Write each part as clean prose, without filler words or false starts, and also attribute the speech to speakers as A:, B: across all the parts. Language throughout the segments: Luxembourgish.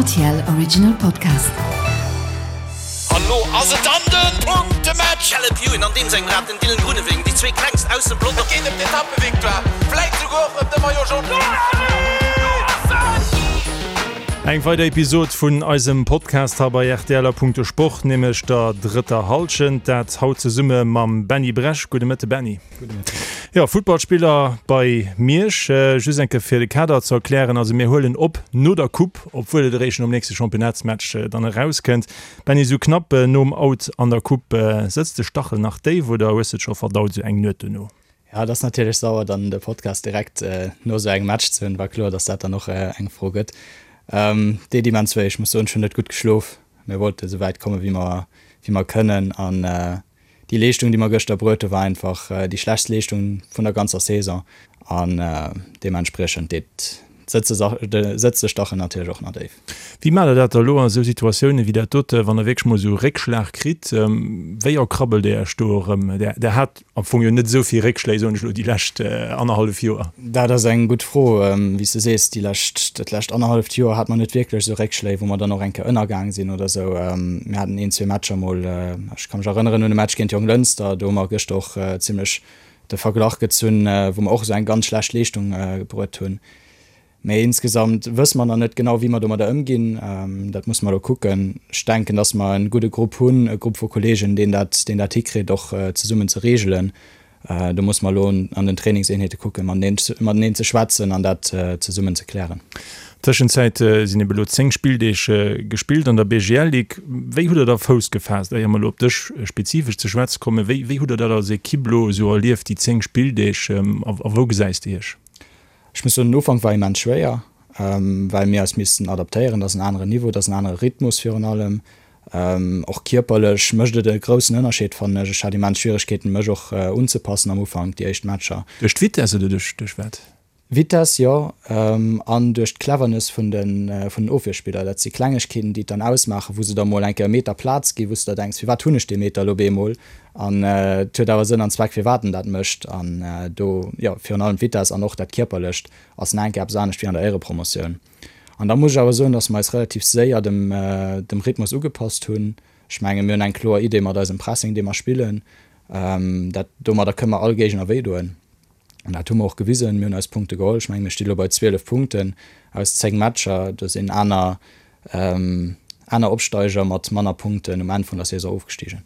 A: RTL Original Podcast.
B: An lo ass et dann den Punktematch! Caleb Ewan an deem sengem Rad, den Dylan Groenewegen, déi zwee klengst aus dem Pelotong. Et geet ëm d'Etappevictoire, vläit souguer och ëm de Maillot Jaune.
C: Eng weider Episod vun eisem Podcast hei bei rtl a Punkto Sport, nämlech der drëtter Hallschent. Dat haut zesumme mam Benny Bresch. Gudde Mëtte Benny. Gudde Mëtten. Jo, Futtballspiller bei Miersch. Just eng Kéier fir de Kader ze erklären, also mir huelen op no der Coupe, obwuel et eréischt nom nächste Championnatsmatch dann erauskënnt. Benny, esou knapp nom Out an der Coupe, sëtzt de Stachel nach déif oder hues de et scho verdaut esou eng Nuet dono?
D: Jo, et ass natierlech sauer dann de Podcast direkt no esou engem Match ze hunn. War kloer, datt dat dann och eng Fro gëtt. Deet immens wéi. Ech muss soen, ech hunn net gutt geschlof. Mir wollte esou wäit komme wéi mer wéi mer kënnen an Déi Leeschtung, déi mer gëschter bruet hu war einfach déi schlechtst Leeschtung vun der ganzer Saison an deementspriechend deet sëtzt de Stachel natierlech och nach déif.
C: Wéi maacht der dat da elo a sou Situatiounen wéi dat dote, wann der wierklech mol esou e Réckschlag kritt? Wéi erkrabbelt Dir Iech do erëm? Der hat am Fong jo net esou vill Réckschléi, soen ech elo, déi lescht annerhallef Joer.
D: Dat ass eng gutt Fro. Wéi s de sees, déi lescht, dat lescht annerhalleft Joer hat mer net wierklech esou Réckschléi, wou mer dann och eng Kéier ënnergaang sinn oder esou. Mir haten een, zwee Matcher mol, ech ka mech erënneren un e Match géint Jonglënster, do hu mer gëschter och zimlech de Verglach gezunn, wou mer och esou eng ganz schlecht Leeschtung bruet hunn. Mee insgesamt wësse mer nach net genau, wéi mer domadder ëmginn. Dat musse mer elo kucken. Ech denken, datt mer e gudde Grupp hunn, e Grupp vu Kolleegen, deen dat, deen dat hikritt, och zesummen ze reegelen. Do musse mer elo an den Trainingseenheete kucken, mateneen ze schwätzen an dat zesummen ze klären.
C: Tëschenzäit sinn ebe elo 10 Spilldeeg gespillt an der BGL-Ligue. Wéi hutt der da Fouss gefaasst, éier mer elo op dech spezifesch ze schwätze kommen? Wéi, wéi hutt der dat als Ekipp elo esou erlieft, déi 10 Spilldeeg, a wou gesäis de iech?
D: Ech muss soen, den Ufank war immens schwéier, well mir eis missten adaptéieren. Dat ass en aneren Niveau, dat ass en anere Rhythmus virun allem. Och kierperlech mécht et e groussen Ënnerscheed, fannen ech. Ech hat immens Schwieregkeeten, mech och unzepassen am Ufank, déi éischt Matcher.
C: Duerch d'Vitess oder duerch wat?
D: Vitess, jo, an duerch d'Cleverness vun den Ofwierspiller. Dat si Klengegkeeten, déi et dann ausmaachen, wou se der mol eng Kéier e Meter Plaz ginn, wou s de der denks, firwat hunn ech dee Meter elo op eemol? An et huet awer Sënn an Zweck, firwat en dat mécht. An do, jo, virun allem d'Vitess an och dat Kierperlecht ass nach eng Kéier eppes anescht wéi an der Éierepromotioun. An da muss ech awer soen, dass mer eis relativ séier dem, dem Rhythmus ugepasst hunn. Ech mengen, mir hunn eng kloer Idee mat eisem Pressing, dee mer spillen. Dat, domadder kënne mer all Géigner wéidoen. An dat hu mer och gewisen. Mir hunn eis Punkte geholl. Ech mengen, mir sti lo bei 12 Punkten aus 10 Matcher. Do sinn aner, aner Opsteiger mat manner Punkten um Enn vun der Saison ofgestigen.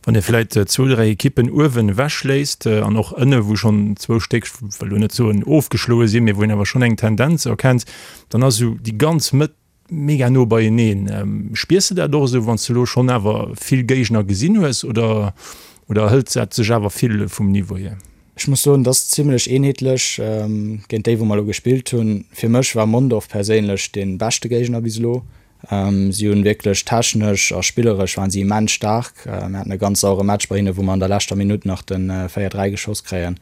C: Wann ee vläit zwou, dräi Ekippen uewen ewechléisst an och ënne wou schonn zwou Stéck, ech wëll elo net soen ofgeschloe sinn, mee wou een awer schonn eng Tendenz erkennt, dann ass esou déi ganz Mëtt mega no beieneen. Spiers de dat och esou, wann s de elo schonn awer vill Géigner gesinn hues oder oder hëlt dat sech awer vill vum Niveau hier?
D: Ech muss soen, et ass zimlech eenheetlech géint déi wou mer elo gespillt hunn. Fir mech war Mondorf perséinlech dee beschte Géigner bis elo. Si hunn wierklech technesch a spilleresch waren si immens staark. Mir haten e ganz sauere Match bei hinne wou mer an der leschter Minutt nach de 4, 3 geschoss kréien.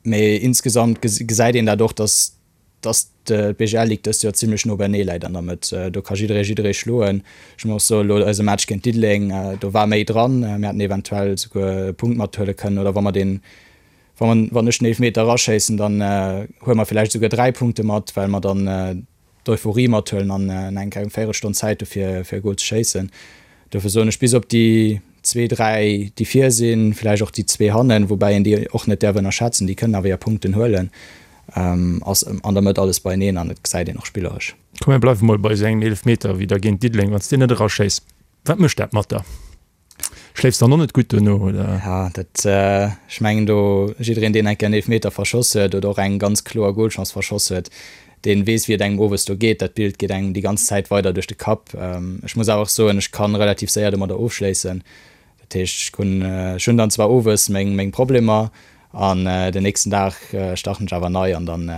D: Mee insgesamt gesäit een dat och, datt dass d'BGL Ligue dëst Joer zimlech no beinee läit an der Mëtt. Do ka jidderee jidderee schloen. Ech muss och soen, elo eise Match géint Diddeleng, do war méi dran. Mir hätten eventuell souguer e Punkt mathuele kënnen oder wa mer deen, wa mer, wann ech den Eelefmeter eraschéissen, dann huele mer villäicht souguer 3 Punkte mat, well mer dann d'Euphorie mathuelen an eng eng Véierelstonn Zäit hu fir e Gol ze schéissen. Dofir soen ech, bis op déi zwee, dräi déi vir sinn, vläicht och déi zwee hannen, woubäi een déi och net däerf ënnerschätzen, déi kënnen awer hir Punkten huelen, ass an der Mëtt alles beieneen an et gesäit een och spilleresch.
C: Komm mir bleiwe mol bei esou engem Eelefmeter wéi da géint Diddeleng, wann s deen net eraschéiss, wat mécht dat mat der? Schléifs dann och net gutt duerno, oder?
D: Ja, dat, ech mengen do, jiddereen deen eng Kéier en Eelefmeter verschoss huet oder och eng ganz kloer Golchance verschoss huet, deen weess wéi et engem owes do geet. Dat Bild geet engem déi ganz Zäit weider duerch de Kapp. Ech muss awer och soen, ech kann relativ séier domadder ofschléissen. Dat heescht, ech hunn, ech hunn dann zwar owes meng, meng Problemer an den nächsten Dag starten ech awer nei an dann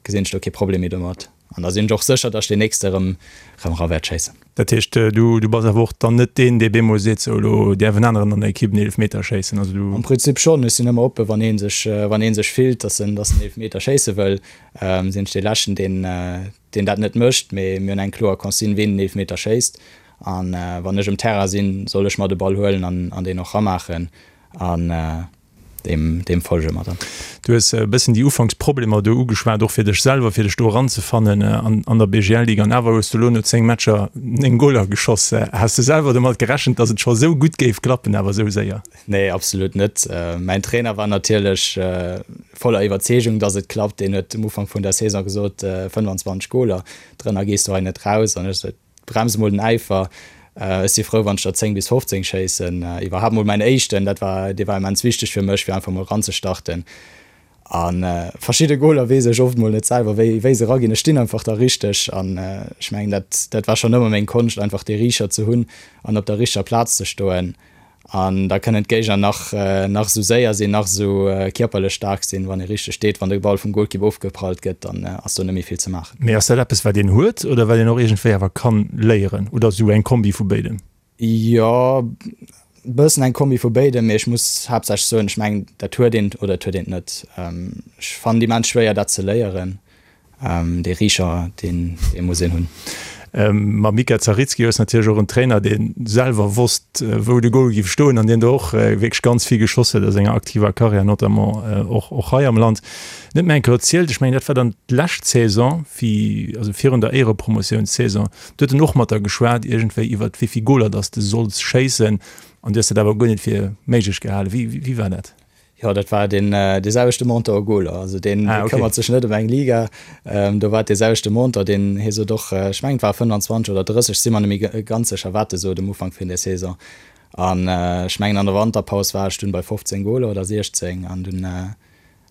D: gesinn ech do kee Problem méi domat an da sinn ech och sécher, datt ech deen nächste erëm erëm era wäert schéissen.
C: Dat heescht, du du bass awer och dann net deen, dee bemol seet, sou elo däerf en aneren an der Ekipp en Eelefmeter schéissen, also du.
D: Am Prinzip schonn, ech sinn ëmmer oppe wann ee sech wann ee sech fillt, datt en datt en Eelefmeter schéisse wëll, sinn ech dee leschten deen deen dat net mécht, mee mir hunn eng kloer Consigne ween den Eelefmeter schéisst an wann ech um Terrain sinn, soll ech mer de Ball huelen an an deen och ramaachen an. Deem, deem folge mer dann.
C: Du hues e bëssen déi Ufanksproblemer do ugeschwat, och fir dech selwer, fir dech do eranzefannen an, an der BGL-Ligue. An awer hues du elo no 10 Matcher 9 Goler geschoss. Has de selwer domat gerechent, datt et scho esou gutt géif klappen, awer esou séier?
D: Nee, absolut net. Mäin Trainer war natierlech voller Iwwerzeegung, datt et klappt. Deen huet um Ufank vun der Saison gesot, 25 Goler, drënner gees du hei net raus. An ech sot, Brems mol den Äifer. Ech si frou, wann ech der 10 bis 15 schéissen. Iwwerhaapt mol mäin éischten, dat war, dee war immens wichteg fir mech, fir einfach mol eranzestarten. A verschidde Goler weess ech oft mol net selwer, wéi, wéi se eraginn. Ech stinn einfach da richteg an ech mengen, dat, dat war schonn ëmmer meng Konscht, einfach dee Riicher ze hunn an op der richteger Plaz ze stoen. An da kënnen d'Géigner nach, nach esou séier sinn, nach esou kierperlech staark sinn, wann ee richteg steet, wann de Ball vum Golkipp ofgeprallt gëtt, dann ass do net méi vill ze maachen.
C: Mee ass dat eppes, wat een huet oder wat een och iergendwéi awer kann léieren? Oder esou eng Kombi vu béidem?
D: Jo, e bëssen eng Kombi vu béidem, mee ech muss haaptsächlech soen, ech mengen, dat huet een oder et huet een et net. Ech fannen et immens schwéier, dat ze léieren. Dee Riicher, deen muss een hunn.
C: Mam Mika Zaritski hues natierlech och en Trainer, dee selwer wosst, wou de Gol giff stoen an deen do och wierklech ganz vill geschoss huet a senger aktiver Karriär, notamment och och hei am Land. Net méi eng Kéier erzielt, ech mengen dat war dann d'lescht Saison, wéi, also virun der Éierepromotiounssaison, do huet en och mat der geschwat iergendwéi iwwert wéi vill Goler dass de solls schéissen an du hues dat awer guer net fir méiglech gehalen. Wéi wéi war dat?
D: Jo, dat war deen dee selwechte Monteur Goler. Also deen ah, okay. këmmert sech net ëm eng Liga. Ähm, do war dee selwechte Monteur, deen hie sot och, äh, ech mengen et war 25 oder 30, si mer net méi ganz sécher, wat e sot um Ufank vun der Saison. An äh, ech mengen an der Wanterpaus war ech dunn bei 15 Goler oder 16 an dunn äh,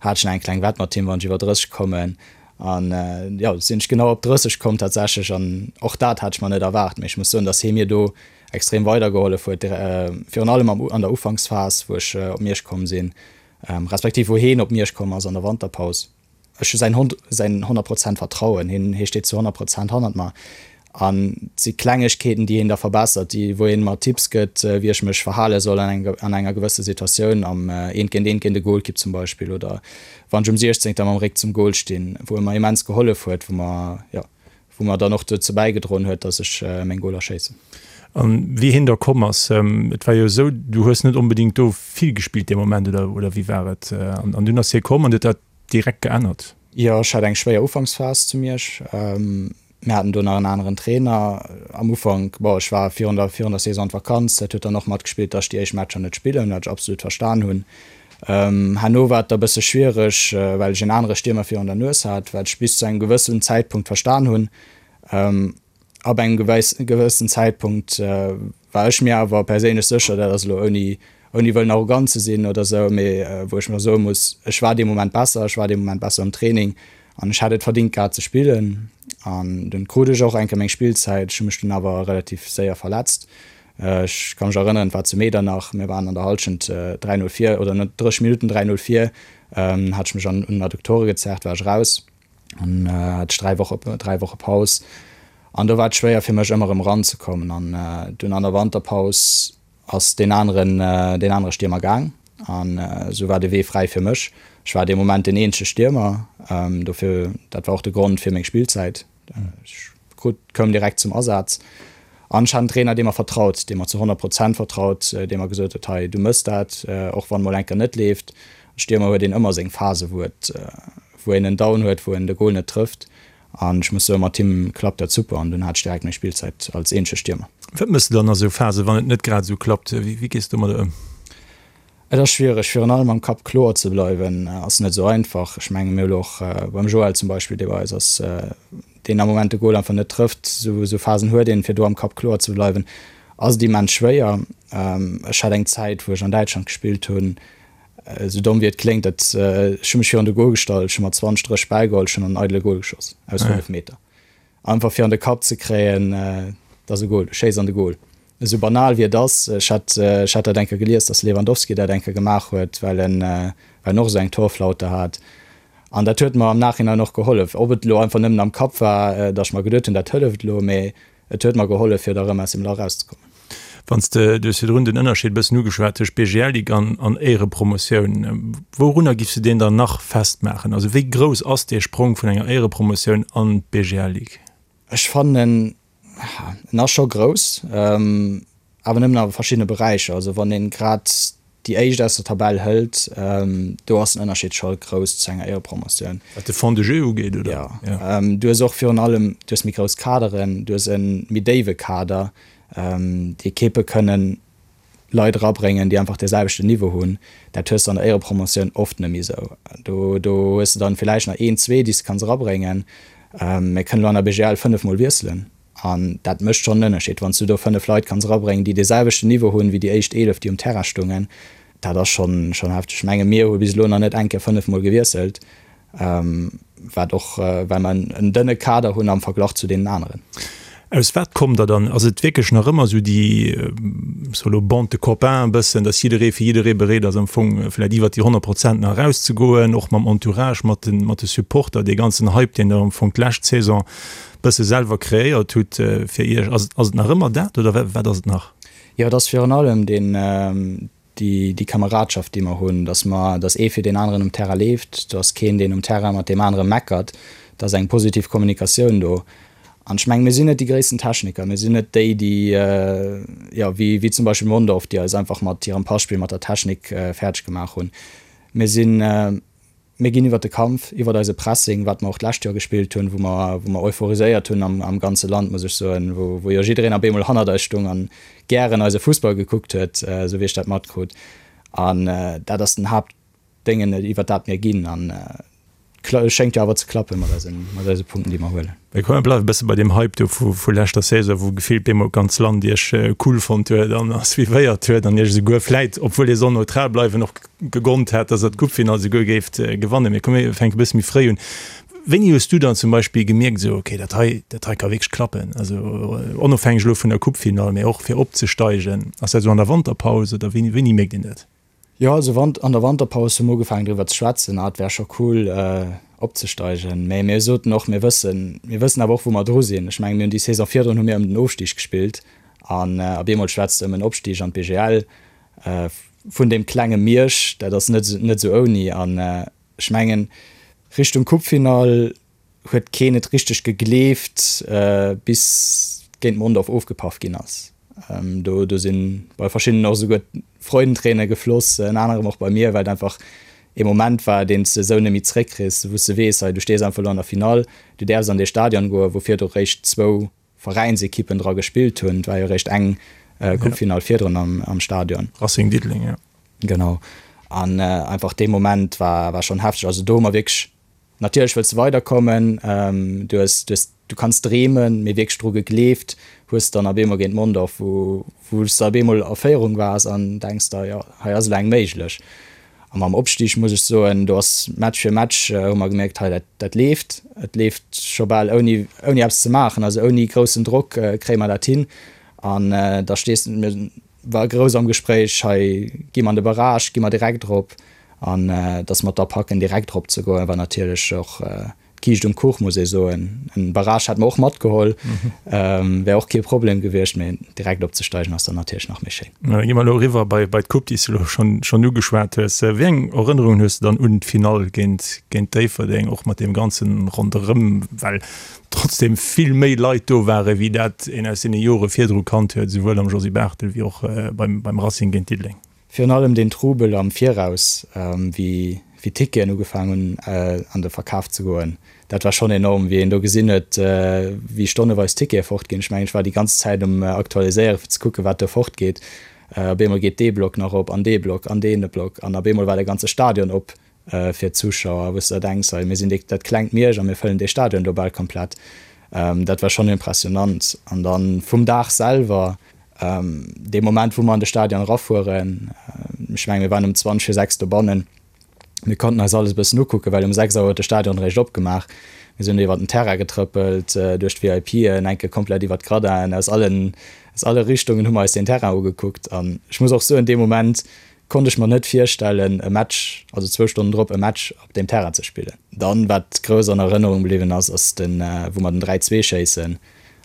D: hat ech nach eng kleng Wett mat him, wann ech iwwer 30 kommen. An äh, jo, sinn ech genau op 30 komm tatsächlech an och dat hat ech mer net erwaart. Mee ech muss soen, datt hie mir do extrem weidergehollef huet, virun allem an der Ufanksphas, wou ech op Miersch komm sinn, respektiv wou heen op Miersch komm ass an der Wanterpaus. Ech hu säin säin 100 Prozent Vertrauen, hien hie steet zu 100 Prozent hannert mer an et si Klengegkeeten, déi hien da verbessert, déi wou hien mer Tipps gëtt, wéi ech mech verhale soll an enger an enger gewësse Situatioun, am eent géint eent géint e Golkipp zum Beispill oder wann ech um Siechzéngter mam Réck zum Gol stinn, wou e mer immens gehollef huet, wou mer jo wou mer dann och dozou bäigedroen huet, dass ech meng Goler schéissen.
C: An wéi hien da komm ass, et war jo esou, du hues net onbedéngt do vill gespillt dee Moment, oder, oder wéi war et? An dunn ass hie komm an huet dat direkt geännert?
D: Jo, ech hat eng schwéier Ufanksphas zu Miersch. Mir haten do nach en aneren Trainer am Ufank. Bon, ech war virun der, virun der Saison an d'Vakanz, dat huet dann och matgespillt, dass ech déi éischt Matcher net spillen, wat ech absolut verstan hunn. Herno war et da bësse schwiereg, well ech en anere Stiermer virun der Nues hat, wat ech bis zu engem gewëssen Zäitpunkt verstan hunn. Ab engem gewëssen Zäitpunkt war ech mir awer perséinlech sécher, dat ass elo ouni ouni wëllen arrogant ze sinn oder esou, mee wou ech mer soe muss, ech war dee Moment besser, ech war dee Moment besser am Training an ech hätt et verdingt gehat ze spillen. An dunn krut ech och eng Kéier meng Spillzäit, ech hu mech dunn awer relativ séier verletzt. Ech ka mech erënneren, et war zu Medernach, mir waren an der Hallschent 3, 0 vir, oder no 30 Minutten 3, 0 vir, hat ech mech an un den Adduktore gezerrt, war ech raus an hat ech 3 Woche, 3 Woche Paus. An do war et schwéier fir mech ëmmer erëm eranzekommen. An dunn an der Wanterpaus ass deen aneren, deen anere Stiermer gaang an esou war de Wee fräi fir mech. Ech war dee Moment den eenzege Stiermer, dofir, dat war och de Grond fir meng Spillzäit. Ech krut, koum direkt zum Asaz an ech hat en Trainer, dee mer vertraut, dee mer zu 100 Prozent vertraut, dee mer gesot huet, hei du mëss dat, och wann mol eng Kéier net leeft. Stiermer huet een ëmmer seng Phase wou et, wou een en Down huet, wou en de Gol net trëfft an ech muss soen, mat him klappt dat super an dunn hat ech direkt meng Spillzäit als eenzege Stiermer.
C: Wat mëss de dann a sou Phasen, wann et net grad esou klappt? Wéi gees de domadder ëm?
D: Et ass schwiereg, virun allem am Kapp kloer ze bleiwen, ass net esou einfach. Ech menge mir hu lo och beim Joël zum Beispill, dee bei eis ass, deen am Moment de Gol einfach net trëfft. Esou Phasen huet een, fir do am Kapp kloer ze bleiwen, ass et immens schwéier. Ech hat eng Zäit, wou ech an Däitschland gespillt hunn, esou domm wéi et kléngt, dat ech hu mech virun de Gol gestallt, ech hu mer 20, 30 Bäll geholl, ech hunn an eidele Gol geschoss aus 5 Meter. Einfach fir an de Kapp ze kréien, et ass e Gol, du schéiss an de Gol. Esou banal wéi et ass, ech hat, ech hat dat eng Kéier gelies, datt Lewandowski dat eng Kéier gemaach huet, well en, well en och esou eng Torflaute hat. An dat huet mer am Nachhinein och gehollef. Ob et elo einfach nëmmen am Kapp war, datt ech mer geduet hunn, dat hëlleft elo, mee et huet mer gehollef, fir da erëm aus dem Lach erauszekommen.
C: Wann s de, du hues virdrun den Ënnerscheed e bëssen ugeschwat tëscht BGL-Ligue an, an Éierepromotioun. Wourunner giffs de deen dann nach festmaachen? Also wéi grouss ass dee Sprong vun enger Éierepromotioun an d'BGL-Ligue?
D: Ech fannen, en ass scho grouss, awer nëmmen a verschiddene Beräicher. Also wann een grad. déi éischt aus der Tabell hëlt, do ass den Ënnerscheed scho grouss zu enger Éierepromotioun.
C: Wat de Fond de jeu ugeet, oder?
D: Jo. Du hues och virun allem, du hues méi grouss Kaderen, du hues e méi déiwe Kader. Déi Ekippe kënnen Leit erabréngen, déi einfach dee selwechten Niveau hunn. Dat hues de an der Éierepromotioun oft net méi esou. Do, do hues de dann villäicht nach een, zwee, déi s de kanns erabréngen. Mir kënnen elo an der BGL fënnefmol wiesselen. An dat mécht schonn en Ënnerscheed, wann s du do 5 Leit kanns erabréngen, déi dee selwechten Niveau hunn, wéi déi éischt 11, déi um Terrain stungen. Dat ass schonn, schonn hefteg. Ech menge mir hu bis elo nach net eng Kéier 5 Mol gewiesselt, wat och, well mer en dënne Kader hunn am Verglach zu deenen aneren.
C: Aus wat kommt der dann? Ass et wierklech nach ëmmer esou déi, ech soe lo, Bande de copains e bëssen, datt jidderee fir jidderee bereet ass am Fong vläicht iwwert déi 100 Prozent nach erauszegoen, och mam Entourage, mat de, mat de Supporter, dee ganzen Hype, deen der am Fong d'lescht Saison bësse selwer kreéiert hutt fir Iech. Ass ass et nach ëmmer dat oder wat ass et nach?
D: Jo, et ass virun allem deen, déi, déi Kameradschaft, déi mer hunn, datt mer, datt ee fir deen aneren um Terrain leeft, do ass keen, deen um Terrain mat deem anere meckert, et ass eng positiv Kommunikatioun do. An ech mengen, mir sinn net déi gréissten Techniker, mir sinn net déi, déi, jo, wéi, wéi zum Beispill Mondorf, déi eis einfach mat hirem Passpill, mat der Technik fäerdeg gemaach hunn. Mir sinn, Mir ginn iwwert de Kampf, iwwert eise Pressing, wat mer och d'lescht Joer gespillt hunn, wou mer, wou mer euphoriséiert hunn am, am ganze Land, muss ech soen, wou, wou jo jiddereen op eemol hannert eis stung an gären eise Fussball gekuckt huet, esou wéi ech dat matkrut. An dat ass den Haaptdéngen, iwwert dat mir ginn. An et schéngt jo awer ze klappen mat eisen, mat eise Punkten, déi mer huelen.
C: Mee komm, mir bleiwe e bësse bei deem Hype do vu leschter Saison, wou gefillt bemol d'ganz Land iech cool fonnt huet an a suivéiert huet an iech esouguer vläit, obwuel dir soll neutral bleiwen, och gegonnt hat, dass der d'Coupefinall esouguer géift gewannen. Mee komm, mir fänke e bësse méi fréi un. Wéini hues du dann zum Beispill gemierkt, esou, okay, dat hei, dat hei ka wierklech klappen, also onofhängeg elo vun der Coupefinall, mee och fir opzesteigen? Ass dat esou an der Wanterpaus oder wéini, wéini mierkt een dat?
D: Jo, also an der Wanterpaus hu mer ugefaangen driwwer ze schwätzen, ah et wär scho cool opzesteigen. Mä mir soten och, mir wëssen, mir wëssen awer och wou mer dru sinn. Ech mengen, mir hunn déi Saison virdrun hu mir ëm den Ofstig gespillt an op eemol schwätzt de ëm en Opstig an d'BGL vun deem klenge Miersch, dat ass net net esou ouni. An ech mengen Richtung Coupefinall huet keen et richteg gegleeft, bis géint Mondorf ofgepaff ginn ass. Do do sinn bei verschiddenen och esouguer d'Freudenträne gefloss, ënner anerem och bei mir, well et einfach ee Moment war, deen s de esou net méi zeréckkriss, wou s de weess, hei du stees einfach elo an der Finall, du däerfs an dee Stadion goen, wou virdru réischt zwou Veräinsekippen dra gespillt hunn. Et war jo réischt eng Coupefinall virdrun am Stadion.
C: Racing Diddeleng, jo.
D: Genau. An einfach dee Moment war war schonn hefteg. Also do hu mer wierklech Natierlech wëlls de weiderkommen, du hues, du hues, du kanns dreemen, mee wierklech dru gegleeft hues de dann op eemol géint Mondorf, wou, wou s de op eemol a Féierung waars an denks der, jo, hei ass elo eng méiglech. A mam Opstig muss ech soen, do ass Match fir Match hu mer gemierkt, hei dat, dat leeft, et leeft scho bal ouni, ouni eppes ze maachen, also ouni groussen Drock kréie mer dat hin. An da stees de, mir war grouss am Gespréich, hei gi mer an de Barrage, gi mer direkt erop. An dass mer et da packen, direkt erop ze goen, war natierlech och d'Kiischt um Kuch, muss ee soen. En Barrage hätt mer och matgeholl, wär och kee Problem gewiescht, mee direkt opzesteigen ass dann natierlech nach méi schéin.
C: Da gi mer elo eriwwer bei d'Coupe, déi s de elo schonn ugeschwat hues. Wéi eng Erënnerungen hues de dann un d'Finall géint Déifferdeng, och mat deem ganzen Ronderëm, well trotzdem vill méi Leit do ware wéi dat een aus deene Jore virdru kannt huet, esouwuel am Josy Barthel wéi och beim Racing géint Diddeleng?
D: Virun allem deen Trubel am Viraus, wéi d'Ticketen ugefaang hunn an de Verkaf ze goen, dat war schonn enorm, wéi een do gesinn huet, wéi stonneweis Tickete fortginn. Ech mengen, ech war déi ganz Zäit um Aktualiséieren, fir ze kucken, wat do fortgeet. Op eemol geet dee Block nach op an dee Block an dee Block an op eemol war de ganze Stadion op fir d'Zuschauer, wou s de der denks, hei, mir sinn déi, dat klengt Miersch a mir fëllen dee Stadion do bal komplett. Dat war schonn impressionant. An da vum Dag selwer, dee Moment, wou mer an de Stadion erafueren, ech mengen, mir waren um 20 vir 6 dobannen, mir konnten eis alles e bëssen ukucken, well um 6 Auer huet de Stadion eréischt opgemaach. Mir sinn do iwwer den Terrain getrëppelt, duerch d'VIPen, eng Kéier komplett iwwer d'Gradinen, aus allen, aus alle Richtungen hu mer eis deen Terrain ugekuckt. An ech muss och soen, dee Moment konnt ech mer net virstellen, e Match, also zwou Stonnen drop, e Match op deem Terrain ze spillen. Dann, wat grouss an Erënnerung bliwwen ass, ass den, wou mer den 3, 2 schéissen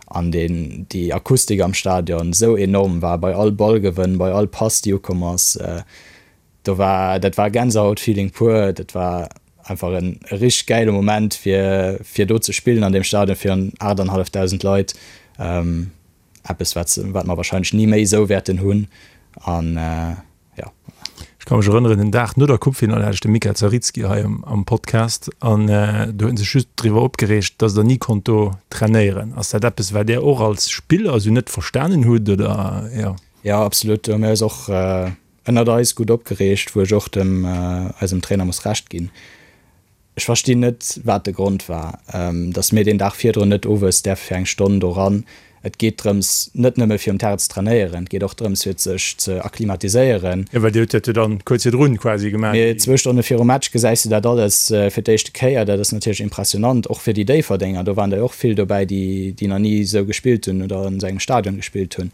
D: an deen, déi Akustik am Stadion esou enorm war, bei all Ballgewënn, bei all Pass, déi ukomm ass, do war, dat war Gänsehautfeeling pur. Dat war einfach en richteg gäile Moment, fir, fir do ze spillen an deem Stadion virun 8.500 Leit. Eppes, wat, wat mer wahrscheinlech ni méi esou wäerten hunn. An jo.
C: Ech ka mech erënneren, den Dag no der Coupefinall hat ech de Mika Zaritski hei am Podcast an do huet en sech just driwwer opgereegt, datt der ni konnt do trainéieren. Ass dat eppes, wat där och als Spiller esou net verstanen hutt, oder?
D: Jo. Jo, absolut. Do hu mir eis och ënnert eis gutt opgereegt, wou ech och dem eisem Trainer muss Recht ginn. Ech verstinn net, wat de Grond war, dass mir deen Dag virdrun net owes däerfe fir eng Stonn do ran. Et geet drëms, net nëmme fir um Terrain ze trainéieren, et geet och drëms, fir sech ze akklimatiséieren.
C: Jo, well Dir hutt dat jo dann kuerz virdrun quasi gemaach.
D: Mee zwou Stonne virum Match gesäis de dat alles fir d'éischte Kéier. Dat ass natierlech impressionant, och fir déi Déifferdenger. Do waren der jo och vill dobäi, déi, déi nach ni esou gespillt hunn oder an esou engem Stadion gespillt hunn.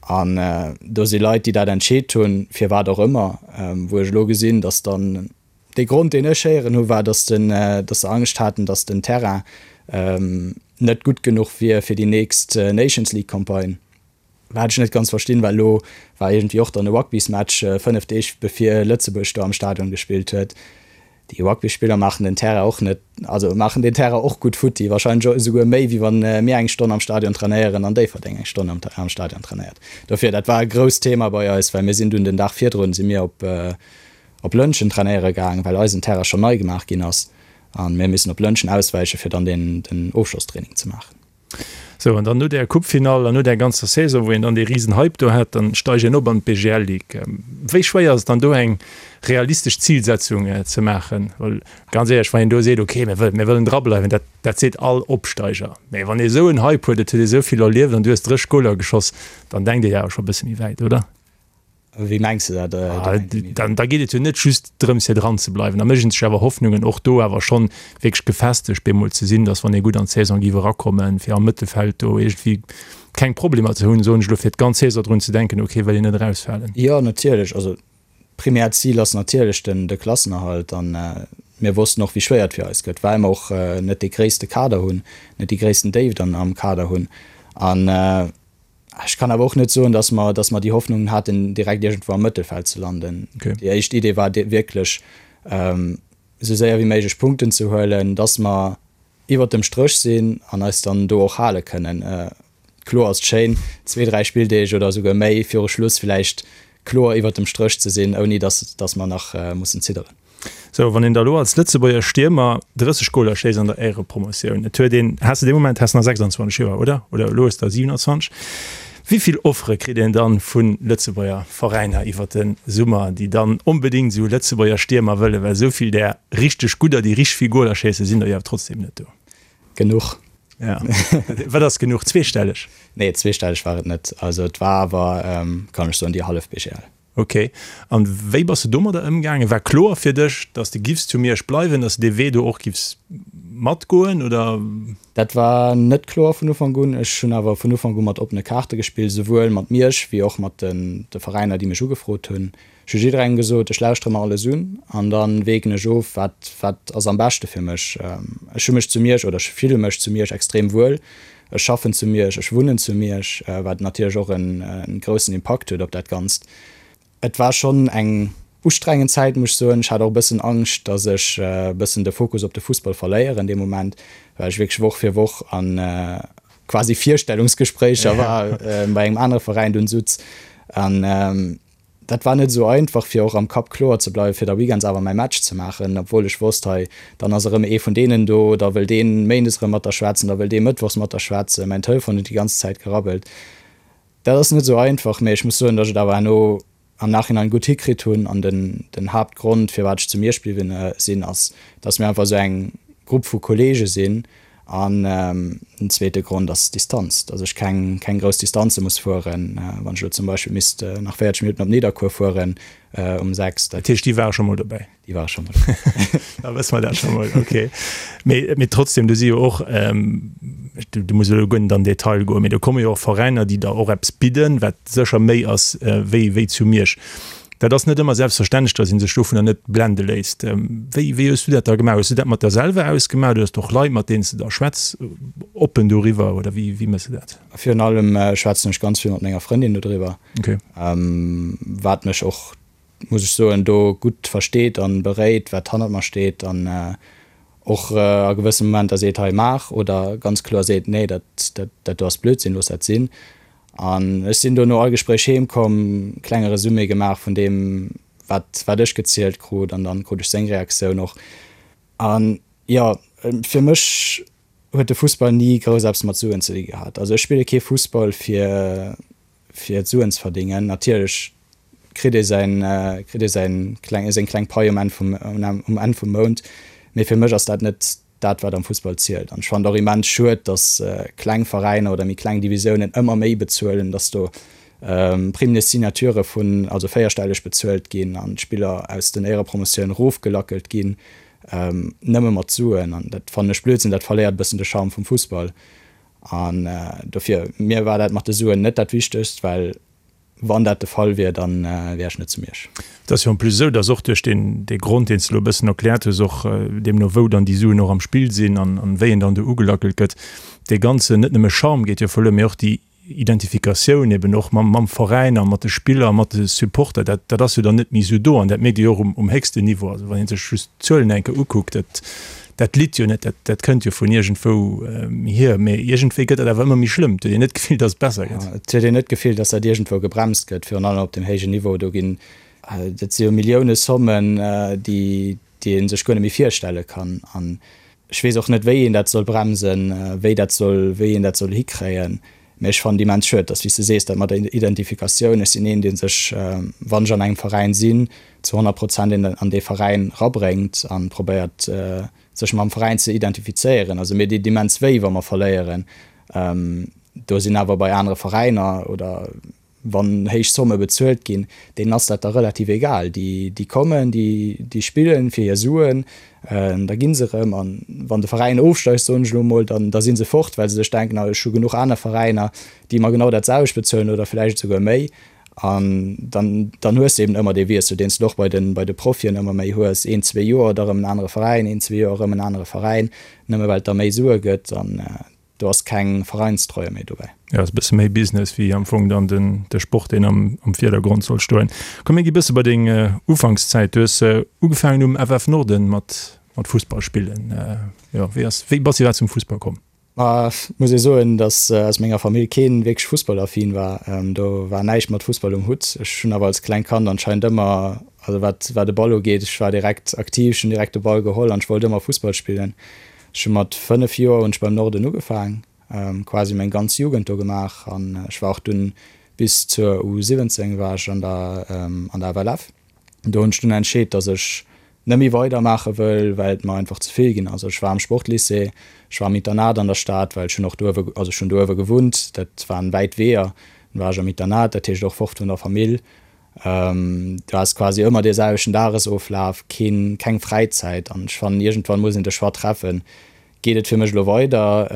D: An do si Leit, déi dat entscheet hunn, firwat och ëmmer, wou ech elo gesinn, dass dann Dee Grond, deen ech héieren hu war, datt se Angscht haten, datt den Terrain net gutt genuch wier fir déi nächst Nations League Campagne. Wat ech net ganz verstinn, well elo war iergendwéi och dann e Rugbysmatch 5 Deeg bevir Lëtzebuerg do am Stadion gespillt huet. Déi Rugbyspiller maachen den Terrain och net, also maachen den Terrain och gutt futti, wahrscheinlech esouguer méi wéi wann mir eng Stonn am Stadion trainéieren an Déifferdeng eng Stonn am Stadion trainéiert. Dofir, dat war e grousst Thema bei eis, well mir sinn dunn den Dag virdrun si mir op op Lëntgen trainéiere gaang, well eisen Terrain schonn nei gemaach ginn ass an mir missen op Lëntgen auswäiche fir dann den den Ofschlosstraining ze maachen.
C: Sou, an dann no där Coupefinall an no där ganzer Saison, wou een dann dee risen Hype do hat, dann steigt een op an d'BGL Ligue. Wéi schwéier ass et dann do eng realistesch Zilsetzung ze maachen? Well ganz éierlech, wann een do seet, okay, mir wëllen, mir wëllen drableiwen, dat, dat seet all Opsteiger. Mee wann ee sou en Hype huet, et huet ee sou vill erlieft an du hues 30 Goler geschoss, dann denkt ee jo awer scho e bësse méi wäit, oder?
D: Wéi mengs de dat?
C: Dann da geet et jo net just drëms fir dran ze bleiwen. Da mécht een sech awer Hoffnungen och do awer schonn wierklech gefestegt bemol ze sinn, datt wann ee gutt an d'Saison géif erakommen, fir am Mëttelfeld do iergendwéi keng Problemer ze hunn, soen ech elo, fir d'ganz Saison drun ze denken, okay, wëll een net erausfalen.
D: Jo, natierlech. Also d'primäert Zil ass natierlech den de Klassenerhalt an mir wossten och wéi schwéier et fir eis gëtt, well mer och net dee gréisste Kader hunn, net déi gréissten Déift am Kader hunn an, Ech kann awer och net soen, dass mer, dass mer déi Hoffnungen haten, direkt iergendwou am Mëttelfeld ze landen. Okay. Déi éischt Idee war wierklech, esou séier wéi méiglech Punkten ze huelen, dass mer iwwert dem Stréch sinn an eis dann do och hale kënnen. Kloer ass et schéin, zwee, dräi Spilldeeg oder esouguer méi viru Schluss vläicht kloer iwwert dem Stréch ze sinn, ouni dass, dass mer nach mussen zidderen.
C: Sou, wann een da elo als Lëtzebuerger Stiermer 30 Goler schéisst an der Éierepromotioun, et huet een, has de dee Moment has nach 26 Joer, oder? Oder elo hues der 27. Wéi vill Offere kritt een dann vu Lëtzebuerger Veräiner iwwer de Summer, déi dann onbedéngt esou Lëtzebuerger Stiermer wëllen? Well esou vill där richteg gudder, déi richteg vill Goler schéissen, sinn der jo awer trotzdem net do.
D: Genuch.
C: Ja. Wat ass genuch? Zweestelleg?
D: Nee, zweestelleg war et net. Also et war awer, kann ech soen, déi hallef BGL.
C: Ok. An wéi bass de domadder ëmgaangen? War kloer fir dech, dass de giffs zu Miersch bleiwen, dass de dee Wee do och giffs matgoen, oder?
D: Dat war net kloer vun Ufank un. Ech hunn awer vun Ufank u mat oppene Kaarte gespillt, esouwuel mat Miersch wéi och mat de Veräiner, déi mech ugefrot hunn. Ech hu jidderengem gesot, ech lauschtere mer alles un an da wägen ech of, wat wat ass am beschte fir mech. Ech hu mech zu Miersch, oder ech fille mech zu Miersch extrem wuel. Ech schaffen zu Miersch, ech wunnen zu Miersch, wat natierlech och en groussen Impakt huet op dat Ganzt. Et war schonn eng ustrengend Zäit, muss ech soen. Ech hat och e bëssen Angscht, datt ech e bëssen de Fokus op de Fussball verléieren dee Moment, well ech wierklech Woch fir Woch a quasi Virstellungsgespréicher war bei engem anere Veräin dunn sutz. An Dat war net esou einfach fir och am Kapp kloer ze bleiwen, fir da weekends awer mäi Match ze maachen, obwuel ech wosst, hei dann ass erëm ee vun deenen do, da wëll dee méindes erëm mat der schwätzen, da wëll dee mëttwochs mat der schwätzen. Mäin Telefon huet déi ganz Zäit gerabbelt. Dat ass net esou einfach, mee ech muss soen, datt ech et awer herno am Nachhinein gutt hikritt hunn an den den Haaptgrond firwat ech zu Miersch bliwwen sinn ass, datt mir einfach esou eng Grupp vu Kollege sinn An den zweete Grond ass d'Distanz, dass ech keng keng grouss Distanze muss fueren. Wann ech elo zum Beispill misst nach 40 Minutten op Nidderkuer fueren um 6,
C: dat. Dat heescht, déi ware scho mol dobäi?
D: Déi ware scho mol dobäi.
C: Da wësse mer dat scho mol, okay. Mee, mee trotzdem, do si jo och, du, du muss elo guer net an den Detail goen, mee do komme jo och Veräiner, déi der och eppes bidden, wat sécher méi ass wéi, wéi zu Miersch. Dat ass net ëmmer selbstverständlech, datt ee sech dovunner net blende léisst. Wéi, wéi hues du dat da gemaach? Hues du dat mat der selwer ausgemaach oder hues du och Leit, mat deenen s de da schwätz, oppen doriwwer oder wéi, wéi méchs de dat?
D: Virun allem schwätzen ech ganz vill mat menger Frëndin dodriwwer,
C: Okay.
D: wat mech och, muss ech soen, do gutt versteet an beréit, wat hannert mer steet an och a gewësse Momenter seet, hei maach, oder ganz kloer seet, nee, dat, dat, dat do ass Blödsinn, looss dat sinn. An ech sinn do no all Gespréich heem komm, klenge Resumé gemaach vun deem, wat wat ech gezielt krut an dann krut ech seng Reaktioun och. An jo, fir mech huet de Fussball ni grouss eppes mat Suen ze di gehat. Also ech spille kee Fussball fir fir Suen ze verdingen. Natierlech kritt ee säin kritt ee säin kleng seng kleng Pai um Enn vum um Enn vum Mount, mee fir mech ass dat net dat wat am Fussball zielt. An ech fannen et och immens schued, datt kleng Veräiner oder méi kleng Divisiounen ëmmer méi bezuelen, datt do Primes de signature vun also véierstelleg bezuelt ginn an d'Spiller aus den Éierepromotioun erofgelackelt ginn, nëmme mat Suen. An dat fannen ech Blödsinn, dat verléiert e bëssen de Charme vum Fussball. An dofir, mir war dat mat de Suen net dat Wichtegst, well Wann dat de Fall wier, da wär ech net zu Miersch.
C: Et ass jo en plus esou, datt och duerch deen dee Grond, deen s de elo e bëssen erkläert hues, och deemno wou dann déi Suen och am Spill sinn an an wéi en dann do ugelackelt gëtt, dee ganzen, net nëmme Charme geet jo verluer, mee och déi Identifikatioun eben och mam mam Veräin a mat de Spiller a mat de Supporter, dat dat ass jo dann net méi esou do an dat mierkt ee jo och um um héchsten Niveau. Also wann ee sech just d'Zuelen eng Kéier ukuckt, dat Dat litt jo net, dat, dat kënnt jo vun iergendwou hier, mee iergendwéi gëtt dat awer ëmmer méi schlëmm. Et huet een net d'Gefill, datt et besser gëtt.
D: Et huet een net d'Gefill, datt dat iergendwou gebremst gëtt, virun allem op deem héijen Niveau. Do ginn, dat si jo Millioune-Sommen, déi, déi ee sech guer net méi virstelle kann. An ech weess och net, wéi een dat soll bremsen, wéi dat soll, wéi een dat soll hikréien. Mee ech fannen et immens schued, dass, wéi s de sees, dat mat der Identifikatioun, ech sinn een, dee sech, wann ech an engem Veräin sinn, zu 100 Prozent an dee Veräin rabréngt a probéiert, sech mam Veräin ze identifizéieren. Also mir deet immens wéi, wa mer verléieren. Do sinn awer bei anere Veräiner oder wann héich Zomme bezuelt ginn, deenen ass dat da relativ egal. Déi, déi kommen, déi, déi spillen fir hir Suen, da gi se erëm. An wann de Veräin ofsteigt, soen ech elo emol, dann, da si se fort, well se sech denken, ah ech hu genuch aner Veräiner, déi mer genau dat selwecht bezuelen oder vläicht esouguer méi. An dann, dann hues de eben ëmmer dee Wiessel, deen s de och bei de, bei de Profien ëmmer méi hues, een, zwee Joer, da erëm en anere Veräin, een, zwee Joer, erëm en anere Veräin, nëmme well et da méi Sue gëtt. An Do ass keng Vereinstreue méi dobäi.
C: Jo, ass e bësse méi Business wéi am Fong dann den de Sport, deen am am Virdergrond soll stoen. Komm mir gi bësse bei deng Ufankszäit. Du hues ugefaangen um FF Norden mat mat Fussball spillen. Jo, wéi ass wéi bass iwwerhaapt zum Fussball komm?
D: Ma muss ee soen, datt aus menger Famill keen wierklech fussballaffin war. Do war näischt mat Fussball um Hutt. Ech hunn awer als klengt Kand anscheinend ëmmer, also wat wat de Ball ugeet, ech war direkt aktiv, ech hunn direkt de Ball geholl an ech wollt ëmmer Fussball spillen. Ech hu mat 5 Joer hunn ech beim Norden ugefaang, quasi meng ganz Jugend do gemaach an ech war och dunn bis zur U 17 war ech an der an der FLF. Do hunn ech dunn entscheet, dass ech net méi weider maache wëll, well et mer einfach ze vill ginn ass. Ech war am Sportlycée, ech war am Internat an der Stad, well ech hunn och do uewe, also ech hunn do uewe gewunnt, dat waren wäit Weeër, dunn war ech am Internat, dat heescht och fort vun der Famill. Du has quasi ëmmer dee selwechten Dagesoflaf, keen, keng Fräizäit an ech fannen iergendwann muss een de Choix treffen, geet et fir mech elo weider,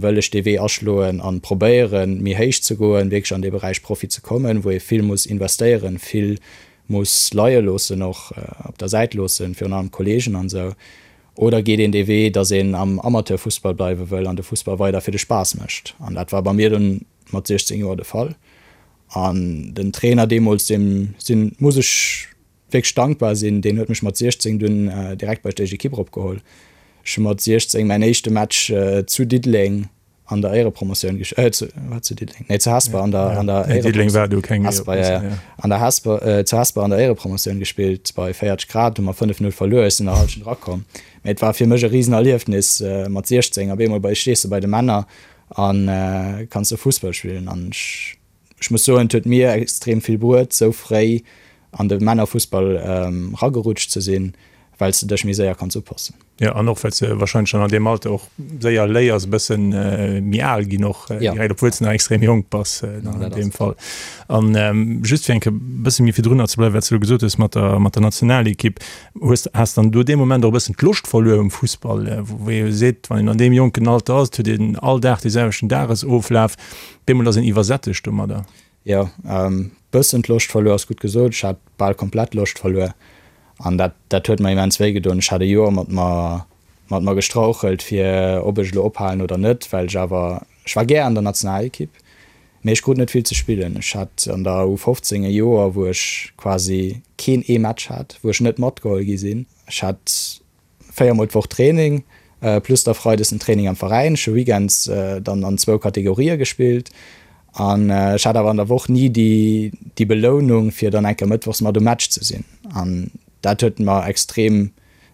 D: wëll ech dee Wee aschloen an probéieren méi héich ze goen, wierklech an dee Beräich Profi ze kommen, wou ee vill muss investéieren, vill muss leie loossen, och op der Säit loossen, virun allem Kolleegen an esou, oder geet een dee Wee, datt een am Amateurfussball bleiwe wëll an de Fussball weider fir de Spaass mécht an dat war bei mir dunn mat 16 Joer de Fall. An den Trainer deemools, deem sinn, muss ech wierklech dankbar sinn, deen huet mech mat 16 dunn direkt bei d'éischt Ekipp eropgeholl. Ech hu mat 16 mäin éischte Match zu Diddeleng an der Éierepromotioun gesch-, äh, zu, war zu Diddeleng? Nee, zu Hesper an der, an der
C: Diddeleng war do keng
D: Hesper, ja, ja. An der Hesper, äh, zu Hesper an der Éierepromotioun gespillt bei 40 Grad, hu mer 5, 0 verluer, ech sinn der Hallschent erakomm. Mee et war fir mech e Risenerliefnis, mat 16 op eemol bei, stees de bei de Männer an kanns du Fussball spillen an ech ech muss soen et huet mir extrem vill bruet sou fréi an de Männerfussball ragerutscht ze sinn, well s de dech méi séier kanns upassen.
C: Jo an och well s de wahrscheinlech dann an deem Alter och séier léiers e bëssen méi al ginn och direkt, obwuel s de nach extrem jonk bass dann an deem Fall. An just fir eng Kéier e bësse méi virdrunner ze bleiwen, wat s de elo gesot hues mat der mat der Nationalekipp, Hues, has dann do dee Moment och e bëssen d'Loscht verluer um Fussball, wou ee jo seet, wann een an deem jonken Alter ass, et huet een all Dag dee selwechten Dagesoflaf, bemol ass een iwwersättegt domadder?
D: Jo, bëssen d'Loscht verluer ass gutt gesot. Ech hat bal komplett d'Loscht verluer an dat, dat huet mer immens wéi gedoen. Ech hat e Joer mat mer, mat mer gestrauchelt, fir ob ech elo ophalen oder net, well ech awer, ech war gär an der Nationalekipp, Mee ech krut net vill ze spillen. Ech hat an der U15 e Joer, wou ech quasi keen ee Match hat, wou ech net matgeholl gi sinn. Ech hat 4 mol d'Woch Training, plus da freides den Training am Veräin. Ech hu weekends dann an zwou Kategorië gespillt. An ech hat awer an der Woch ni déi, déi Belounung, fir dann eng Kéier mëttwochs mat um Match ze sinn. An dat huet mer extrem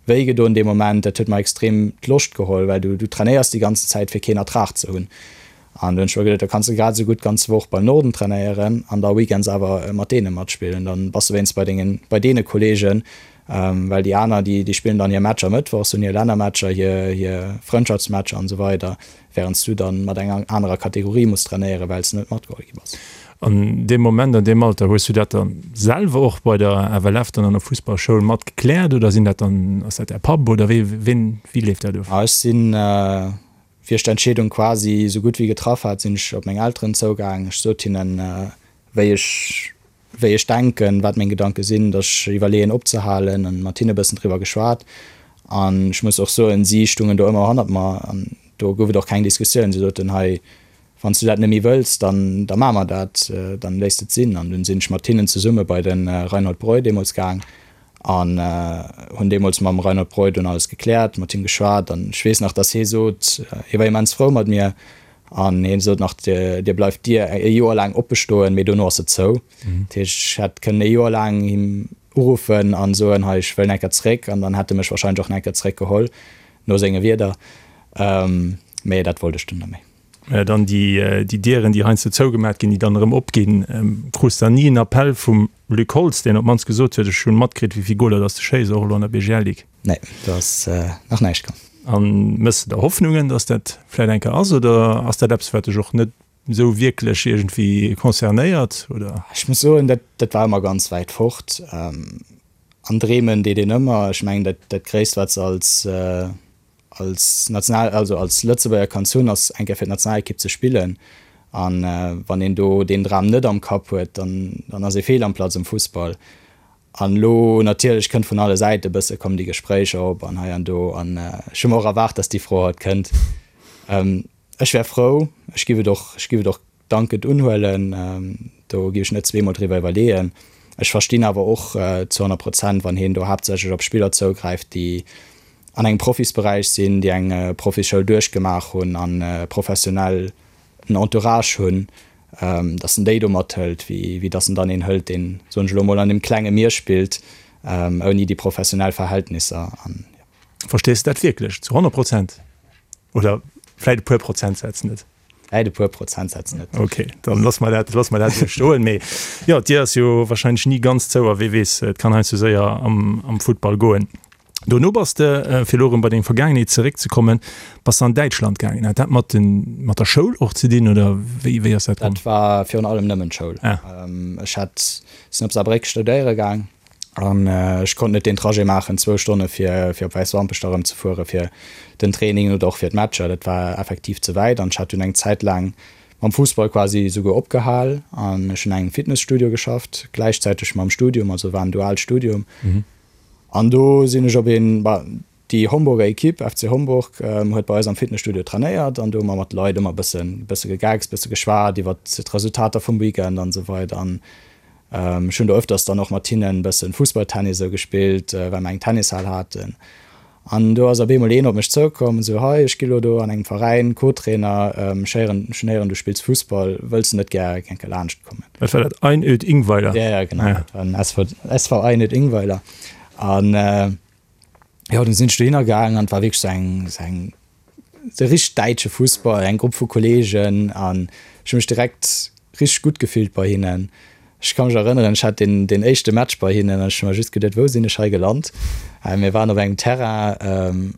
D: wéi gedoen dee Moment. Dat huet mer extrem d'Loscht geholl, well du, du trainéiers déi ganzen Zäit, fir keen Ertrag ze hunn. An du hunn ech mer geduet, da kanns de grad esou gutt d'ganz Woch beim Norden trainéieren an da weekends awer mat deene matspillen. Dann bass de wéinst bei dengen, bei deene Kolleegen, well déi aner, déi, déi spillen dann hir Matcher mëttwochs, hunn hir Lännermatcher, hir, hir Frëndschaftsmatcher an esou weider, wärend s du dann mat enger anerer Kategorie muss trainéieren, well s de net matgeholl gi bass.
C: An deem Moment, an deem Alter, hues du dat dann selwer och bei der FLF dann an der Fussballschoul mat gekläert oder sinn dat dann, ass dat däi Papp oder wéi, ween, wéi leeft dat of?
D: Ech sinn, wéi ech d'Entscheedung quasi esou gutt wéi getraff hat, sinn ech op meng Elteren zougaang. Ech sot hinnen, wéi ech, wéi ech denken, wat meng Gedanke sinn, datt ech iwwerleeën opzehalen an mat hinne e bëssen driwwer geschwat. An ech muss och soen, si stungen do ëmmer hannert mer an do gouf et och keng Diskussioun. Si soten, hei, wann s du dat net méi wëlls, dann, da maache mer dat, dann léisst et sinn. An dunn sinn ech mat hinnen zesumme bei de Reinhold Breu deemools gaang An hunn deemools mam Reinhold Breu dunn alles gekläert, mat him geschwat. An ech weess nach, datt hie sot, hie war immens frou mat mir, an hie sot nach, Dir bleift d'Dier e Joer laang oppe stoen, mee dono ass se zou. Dat heescht, ech hätt kënnen e Joer laang him uruffen a soen, hei, ech wëll nach eng Kéier zeréck, an dann hätt e mech warscheinlech och nach eng Kéier zeréckgeholl, no senge Wierder. Mee dat wollt ech dunn net méi.
C: Dann déi Dieren, déi heiansdo zougemat ginn, déi dann erëm opginn. Krus dann ni en Appell vum Luc Holtz, deen op d'mannst gesot huet, ech hunn matkritt, wéi vill Goler dass de schéiss, och elo an der BGL Ligue?
D: Nee, do ass nach näischt komm.
C: A méchs de der Hoffnungen, dass dat vläit eng Kéier ass, oder ass dat eppes, wat dech och net esou wierklech iergendwéi concernéiert, oder?
D: Ech muss soen, dat dat war ëmmer ganz wäit fort. An dreemen deet een ëmmer. Ech mengen, dat dat Gréisst, wat s als als National, also als Lëtzebuerger kanns hunn, ass eng Kéier fir d'Nationalekipp ze spillen. An wann een do deen Dram net am Kapp huet, dann, dann ass ee fehl am Platz am Fussball. An elo natierlech kënnt vun alle Säite bësse kommen déi Gespréicher op an hei an do. An ech hu mer och erwaart, datt déi Fro haut kënnt. Ech wär frou, ech giff et och, ech giff et och dankend unhuelen, do giff ech net zweemol driwwer iwwerleeën. Ech verstinn awer och zu 100 Prozent, wann hien do haaptsächlech op Spiller zougräift, déi an engem Profisberäich sinn, déi eng Profisschoul duerchgemaach hunn a professionell en Entourage hunn, datt en déi do mathëlt, wéi datt en dann een hëlt, deen, soen ech elo mol, an deem klenge Mier spillt, ouni déi professionell Verhältnisser.
C: Verstees de dat wierklech zu 100 Prozent oder vläit e puer Prozentsätz net?
D: Vläit e puer Prozentsätz net.
C: Ok, dann loosse mer dat, loosse mer dat esou stoen. Mee jo, d'Dier ass jo wahrscheinlech ni ganz zou a wee weess, et kann heiansdo séier am, am Futtball goen. Dono bass de, fir elo erëm bei deng Vergaangenheet zeréckzekommen, bass de an Däitschland gaangen. Hat dat mat den, mat der Schoul och ze dinn oder wéi, wéi ass dat
D: komm? Dat war virun allem nëmmen d'Schoul. Ah. Ech hat, sinn op Saarbréck studéiere gaang. An ech konnt net deen Trajet maachen, zwou Stonne fir fir op Wäiswampech da rëm ze fuere fir den Training oder och fir d'Matcher. Dat war effektiv ze wäit an ech hat dunn eng Zäit laang mam Fussball quasi esouguer opgehal an ech hunn an engem Fitnesstudio geschafft, gläichzäiteg mam Studium, also war en duaalt Studium. An do sinn ech op een, Déi Homburger Equipe, FC Homburg, huet bei eis am Fitnesstudio trainéiert an do hu mer mat de Leit ëmmer bëssen, bësse gegeckst, bësse geschwat iwwer d'Resultater vum Weekend an esou weider. An ech hunn do ëfters dann och mat hinnen bëssen Fussballtennis esou gespillt, well mer eng Tennishal haten. An do ass op eemol een op mech zoukomm, esou, Hei, ech gi lo do an engem Veräin Co-Trainer, ech héieren, ech hunn héieren, du spills Fussball, wëlls de net gär eng Kéier laanscht kommen?
C: Wat war dat, Einöd Ingweiler?
D: Ja, ja, genau, dat war den SV, SV Einöd Ingweiler. An Jo, dunn sinn ech dohinner gaangen an et war wierklech sou eng, sou eng, sou richteg däitsche Fussball, eng Grupp vu Kolleegen an ech hu mech direkt richteg gutt gefillt bei hinnen. Ech ka mech erënneren, ech hat deen, deen éischte Match bei hinnen an ech hu mer just geduet, wou sinn ech hei gelant? Mir waren op engem Terrain,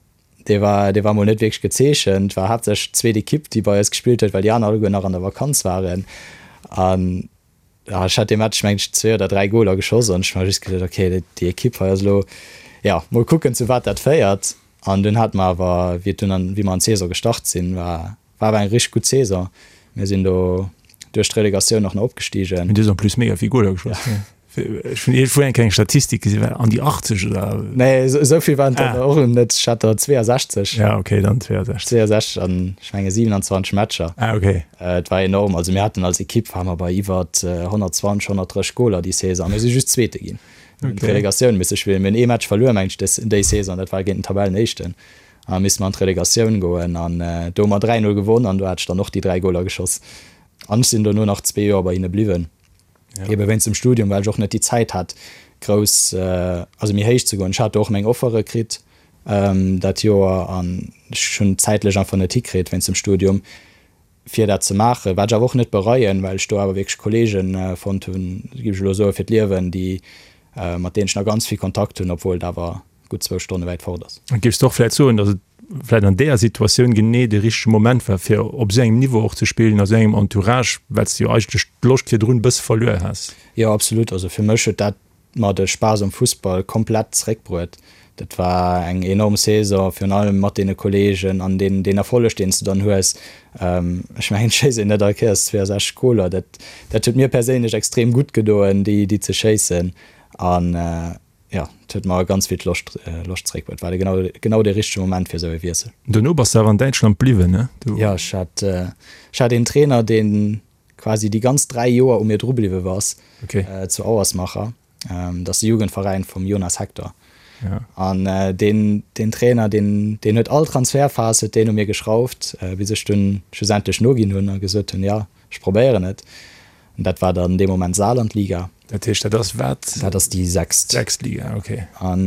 D: dee war, dee war mol net wierklech gezeechent, war haaptsächlech d'zweet Ekipp, déi bei eis gespillt huet, well déi aner alleguer nach an der Vakanz waren an Ja, ech hat dee Match meng ech zwee oder dräi Goler geschoss an ech hu mer just geduet, okay, déi Ekipp hei ass elo, ja, mol kucken zu wat dat féiert. An dunn hate mer awer, wéi et dunn an, wéi mer an d'Saison gestart sinn, war, war awer eng richteg gutt Saison. Mir sinn do duerch d'Relegatioun och nach opgestigen.
C: Mee du hues en plus mega vill Goler geschoss. Ja. Ech hunn iergendwou eng kleng Statistik gesinn, war an déi 80 oder?
D: Nee, esou vill waren et dann och net. Ech hat der 62.
C: Ja, okay, dann 62.
D: 62 an ech menge 27 Matcher.
C: Ah, okay.
D: Et war enorm. Also mir haten als Ekipp ware mer bei iwwer 120, 130 Goler déi Saison a mir si just Zweete ginn. Mir hunn d'Relegatioun misse spillen. Mir hunn ee Match verluer, meng ech, des déi Saison, dat war géint den Tabellenéischten. A misste mer an d'Relegatioun goen an do hu mer 3, 0 gewonn an do hat ech dann och déi 3 Goler geschoss. An ech sinn dono nach zwee Joer bei hinne bliwwen, ebe wéinst dem Studium, well ech och net déi Zäit hat, grouss, also méi héich ze goen. Ech hat do och meng Offere kritt dat Joer an ech hunn et zäitlech einfach net hikritt wéinst dem Studium, fir dat ze maachen. Wat ech awer och net bereien, well ech do awer wierklech Kolleege fonnt hunn, géif ech elo soen, fir d'Liewen, déi, mat deenen ech nach ganz vill Kontakt hunn, obwuel et awer gutt zwou Stonne wäit fort ass.
C: Géifs de och vläit soen, datt et vläit an deeër Situatioun genee de richtege Moment war, fir op esou engem Niveau och ze spillen, a sou engem Entourage, well s de jo eigentlech d'Loscht virdrun e bësse verluer has?
D: Jo, absolut. Also fir mech huet dat mer de Spaass um Fussball komplett zeréckbruet. Dat war eng enorm Saison, virun allem mat deene Kolleegen an deen, deen Erfolleg, deen s de dann hues. Ech mengen, et schéisst een net all Kéiers 62 Goler. Dat, dat huet mir perséinlech extrem gutt gedoen, déi, déi ze schéissen. An jo, et huet mer ganz vill d'Loscht, Loscht zeréckbruet. War de genau, genau dee richtege Moment fir esou e Wiessel.
C: Dono bass de awer an Däitschland bliwwen, ne?
D: Du. Jo, ech hat, ech hat een Trainer, deen quasi déi ganz 3 Joer u mir dru bliwwe ass,
C: okay.
D: zu Auersmacher. Dat ass de Jugendveräin vum Jonas Hector.
C: Ja.
D: An deen, deen Trainer, deen, deen huet all Transferphas huet deen u mir geschrauft, bis ech dunn schlussendlech noginn hunn a gesot hunn, jo, ech probéieren et. An dat war dann dee Moment Saarlandliga.
C: Dat heescht, dat ass wat?
D: Dat ass déi sechst.
C: Sechst Liga, okay.
D: An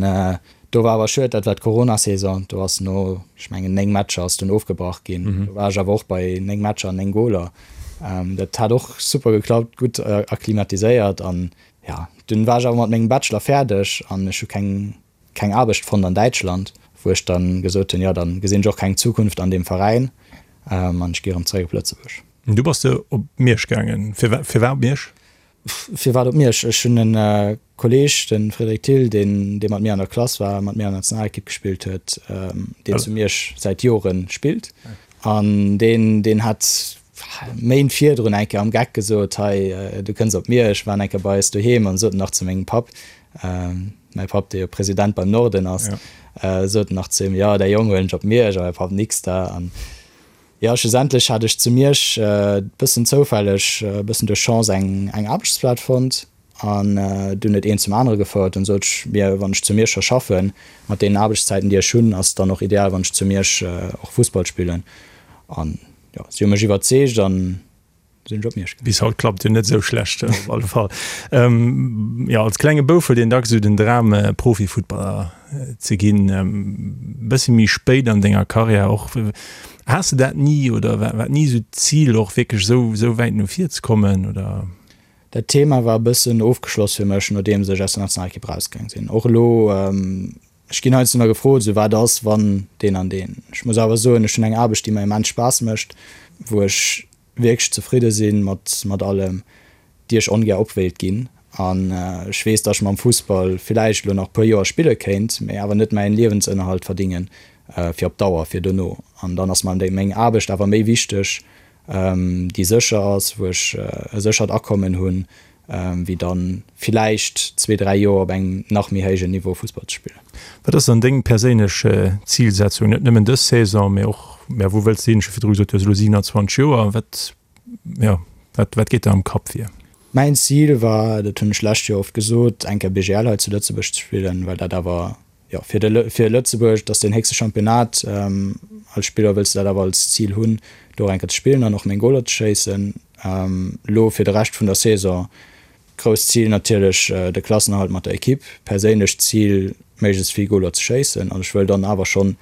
D: do war awer schued, dat war d'Corona-Saison, do ass no, ech mengen, 9 Matcher ass dunn ofgebrach ginn. Do war ech awer och bei 9 Matcher an 9 Goler. Dat hat och super geklappt, gutt akklimatiséiert an jo, dunn war ech awer mat mengem Bachelor fäerdeg an ech hu keng keng Aarbecht fonnt an Däitschland, wou ech dann gesot hunn, jo dann gesinn ech och keng Zukunft an deem Veräin an ech gi erëm zeréck op Lëtzebuerg.
C: Du bass de op Miersch gaangen. Firwat op Miersch?
D: Firwat op Miersch? Ech hunn e Kolleeg, de Frédéric Thill, deen dee mat mir an der Klass war, mat mir an der Nationalekipp gespillt huet, deen zu Miersch säit Jore spillt an deen deen hat Méint virdrun eng Kéier am Geck gesot, hei du kënns op Miersch, waren eng Kéier bei eis doheem an sot nach zu mengem Papp, mäi Papp dee jo President beim Norden ass, sot nach zu him, jo däi Jong huelen ech op Miersch a mäi Papp nix da. An jo schlussendlech hat ech zu Miersch e bëssen zoufälleg, e bëssen duerch Chance eng eng Aarbechtsplaz fonnt an dunn huet eent zum anere gefouert. Dunn sot ech mir, wann ech zu Miersch scho schaffen, mat deenen Aarbechtszäiten déi ech hunn, ass et dann och ideal wann ech zu Miersch och Fussball spillen. An jo, si hu mech iwwerzeegt an sinn ech op Miersch gaangen.
C: Bis haut klappt jo net esou schlecht op alle Fall. Jo, als klenge Bouf huet een dacks esou den Dram Profifuttballer ze ginn. E bësse méi spéit an denger Karriär och. Has de dat ni oder war war ni esou d'Zil och wierklech esou esou wäit no vir ze kommen oder?
D: Dat Thema war e bëssen ofgeschloss fir mech nodeems ech aus der Nationalekipp erausgaang sinn. Och elo, ech ginn heiansdo nach gefrot, esou wat ass wann deen an deen. Ech muss awer soen, ech hunn eng Aarbecht déi mer immens Spaass mécht, wou ech wierklech zefridde si mat mat allem, déi ech ongär op wéilt ginn. An ech weess, datt ech mam Fussball villäicht elo nach e puer Joer spille kéint, mee awer net mäin Liewensënnerhalt verdingen fir op Dauer, fir dono. An dann ass mer déi meng Aarbecht awer méi wichteg, déi sécher ass, wou ech e séchert Akommen hunn, wéi dann villäicht zwee, dräi Joer op engem nach méi héijen Niveau Fussball ze spillen.
C: Wat ass dann deng perséinlech Zilsetzung, net nëmmen dës Saison, mee och, ja, wou wëlls de hin? Ech hu virdru gesot, du hues elo 27 Joer, wat, jo, wat, wat geet der am Kapp vir?
D: Mäin Zil war, dat hunn ech lescht Joer oft gesot, eng Kéier BGL hei zu Lëtzebuerg ze spillen, well dat awer, jo, fir de, fir Lëtzebuerg, dat ass deen héchste Championnat. Als Spiller wëlls de dat awer als Zil hunn, do och eng Kéier ze spillen an och meng Goler ze schéissen. Elo fir de Rescht vun der Saison, grousst Zil natierlech de Klassenerhalt mat der Ekipp, perséinlecht Zil méiglechst vill Goler ze schéissen an ech wëll dann awer schonn,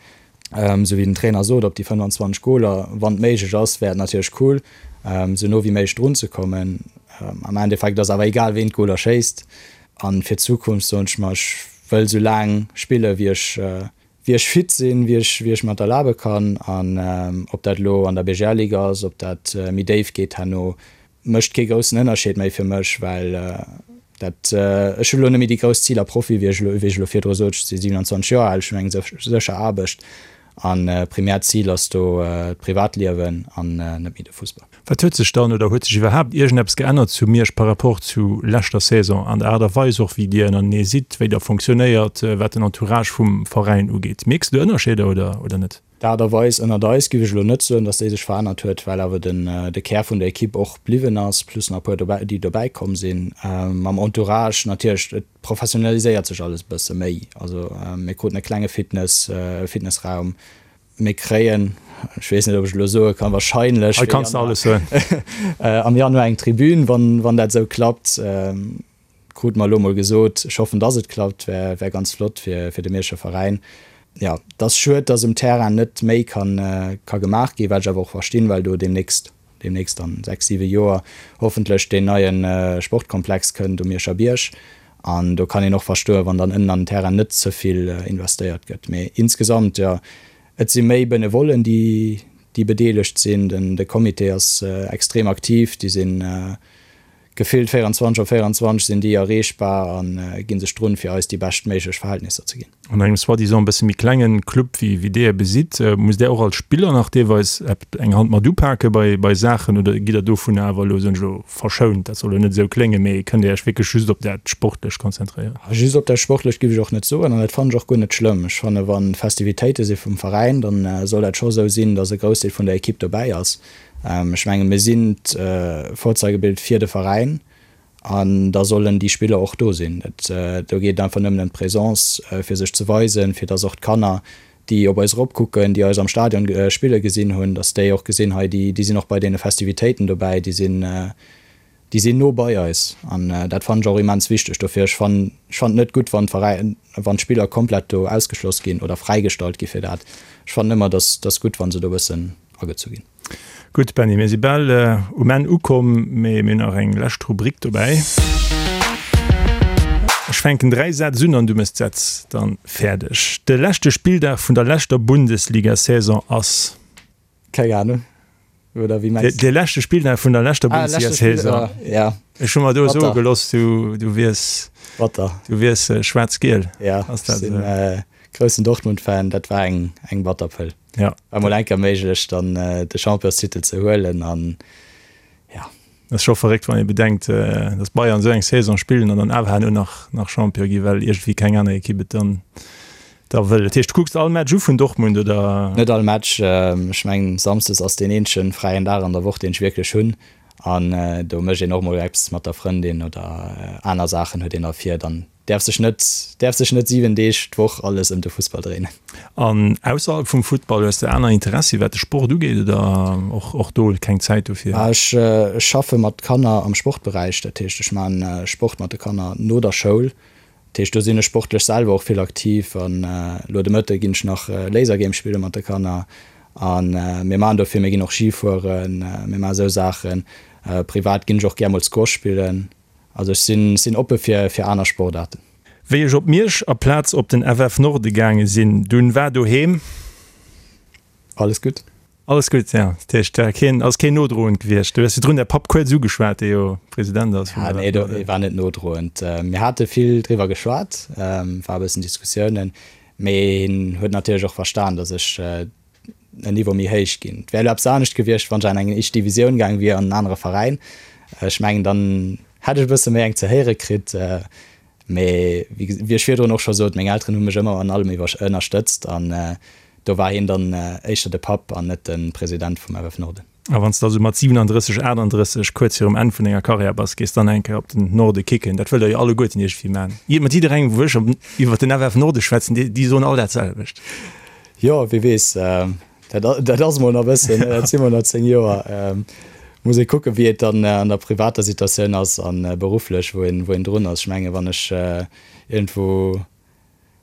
D: esou wéi den Trainer sot, op déi 25 Goler, wann et méiglech ass, wär et natierlech cool, esou no wéi méiglech drun ze kommen. Am Endeffekt ass awer egal ween d'Goler schéisst an fir d'Zukunft soen ech mer, ech wëll esou laang spille wéi ech wéi ech fit sinn, wéi ech, wéi ech mer et erlabe kann. An ob dat elo an der BGL-Liga ass, ob dat méi déif geet herno, mécht kee groussen Ënnerscheed méi fir mech, well dat, ech hunn elo net méi déi grouss Ziler Profi, wéi ech elo, wéi ech elo virdru sot. Ech si 27 Joer al, ech hunn eng sécher Aarbecht an primäert Zil ass do d'Privatliewen an net méi de Fussball.
C: Wat huet sech dann oder huet sech iwwerhaapt iergendeppes geännert zu Miersch par rapport zu leschter Saison, an der Aart a Weis och wéi Dir ënnertenee sidd, wéi der fonctionnéiert, wat den Entourage vum Veräin ugeet? Mierks de do Ënnerscheeder oder oder net?
D: D'Aart a Weis ënnert eis géif ech elo net soen, datt déi sech verännert huet, well awer den de Kär vun der Ekipp och bliwwen ass, plus nach e puer dobäi déi dobäi komm sinn. Mam Entourage natierlech, et professionaliséiert sech alles e bësse méi. Also mir kruten e klenge Fitness, e Fitnessraum. Mir kréien, ech weess net, ob ech elo soe kann, wahrscheinlech
C: Hei kanns de alles soen.
D: am Januar eng Tribün, wann, wann dat esou klappt. Krute mer elo mol gesot. Ech hoffen, dass et klappt, wär, wär ganz flott fir, fir de Mierscher Veräin. Jo, et ass schued, dass um Terrain net méi kann, ka gemaach ginn, wat ech awer och verstinn, well do deemnächst, deemnächst an 6, 7 Joer hoffentlech deen neie Sportkomplex kënnt um Mierscher Bierg. An do kann een och verstoen, wann dann ënnen an den Terrain net ze vill investéiert gëtt. Mee insgesamt, jo, et si méi Benevollen, déi, déi bedeelegt sinn. Den, de Comité ass extrem aktiv, déi sinn, Gefillt 24 op 24 sinn déi erreechbar a ginn sech drun, fir eis déi bescht méiglech Verhältnisser ze ginn.
C: An engem soi-disant e bësse méi klengen Club wéi wéi Dir besitt, musst Där och als Spiller nach deelweis eng Hand mat upake bei bei Saachen oder gitt Der dovun awer elo, soen ech elo, verschount? Dat soll elo net esou kléngen, mee kënnt Dir Iech wierklech just op dat Sportlecht konzentréieren?
D: Just op dat Sportlecht giff ech och net soen an dat fannen ech och guer net schlëmm. Ech fanne wa Festivitéite si vum Veräin, dann soll dat scho esou sinn, datt e Groussdeel vun der Equipe dobäi ass. Ech menge mir sinn d'Vorzeigebild fir de Veräin an da sollen déi Spiller och do sinn. Do geet et einfach nëmmen ëm d'Presence, fir sech ze weisen, fir datt och d'Kanner, déi op eis eropkucken, déi eis am Stadion spille gesinn hunn, datt déi och gesinn, hei déi sinn och bei deene Festivitéiten dobäi, déi sinn déi sinn no bei eis. An dat fannen ech och immens wichteg. Dofir, ech fannen ech fannen et net gutt, wann d'Veräin, wann d'Spiller komplett do ausgeschloss ginn oder fräigestallt gi fir dat. Ech fannen ëmmer, datt datt gutt, wa se do e bëssen agezu ginn.
C: Gutt, Benny, mir si bal um Enn ukomm, mee mir hunn nach eng lescht Rubrik dobäi. Ech fänken 3 Sätz un an du méchs d'Sätz dann fäerdeg. De leschte Spilldag vun der leschter Bundesliga-Saison ass.
D: Keng Ahnung.
C: Oder wéi mengs du? De leschte Spilldag vun der leschter ah, Bundesliga-Saison.
D: Ja.
C: Ech hu mer do soe gelooss, du, du wiers.
D: Batter.
C: Du wiers äh, schwaarz-giel.
D: Ja, Ass dat, sinn äh, groussen Dortmund-Fan, dat war eng, eng batter Pëll.
C: Ja.
D: War mol enker méiglech, dann äh, de Championstitel ze huelen an ja.
C: Dat ass scho verréckt, wann ee bedenkt, datt Bayern esou eng Saison spillen an dann awer herno nach nach Champion gi, well iergendwéi keng aner Ekipp et dann da wëll. Dat heescht, du kucks all Match u vun Dortmund, oder?
D: Net all Match. Ech mengen, samsdes ass deen eenzege fräien Dag an der Woch, deen ech wierklech hunn. An do mécht een och mol eppes mat der Frëndin oder aner Saachen huet een da vir. Dann Däerf sech net, däerf sech net 7 Deeg d'Woch alles ëm de Fussball dréinen.
C: An ausserhalb vum Futtball, hues de aner Interessi wat de Sport ugeet oder och och do keng Zäit dofir?
D: Ech schaffe mat Kanner am Sportberäich, dat heescht ech man Sport mat de Kanner no der Schoul. Dat heescht do sinn ech sportlech selwer och vill aktiv an elo de Mëtte ginn ech nach Lasergame spille mat de Kanner an mir man do vill, mir ginn och Ski fueren, mir man esou Saachen. Privat ginn ech och gär mol Squash spillen. Also ech sinn sinn oppe fir fir aner Sportaarten.
C: Wéi ech op Miersch aplaz op den FF Norde gaange sinn, dunn war doheem.
D: Alles gutt.
C: Alles gutt, ja. Dat heescht, war keen, ass keen nodroend gewiescht. Du hues virdrun däi Papp kuerz ugeschwat, dee jo President ass
D: vum FF Norden. Nee, war net nodroend. Mir hate vill driwwer geschwat, war e bëssen Diskussiounen, mee hien huet natierlech och verstan, datt ech en Niveau méi héich ginn. Et wär elo eppes anescht gewiescht, wann ech an eng éischt Divisioun gaang wier, an en anere Veräin. Ech mengen, dann hätt ech e bësse méi eng ze héiere kritt. Mee wéi ech virdrun och scho sot, meng Elteren hu mech ëmmer an allem iwwer ënnerstëtzt an do war hien dann éischter de Papp an net de President vum FF Norden.
C: A wann s de also mat 37, 38 kuerz virum Enn vun denger Karriär bass, gees dann eng Kéier op den Norde kicken. Dat wëllt der jo alleguerten iergendwéi man. Mat jidderengem, wou ech iwwer den FF Norde schwätzen, déi, déi soen all dat selwecht.
D: Jo, wie weess, dat, dat ass mol nach e bëssen, dat si mol nach 10 Joer. Muss ee kucken, wéi et dann an der privater Situatioun ass a berufflech, wou een, wou een drun ass. Ech menge wann ech iergendwou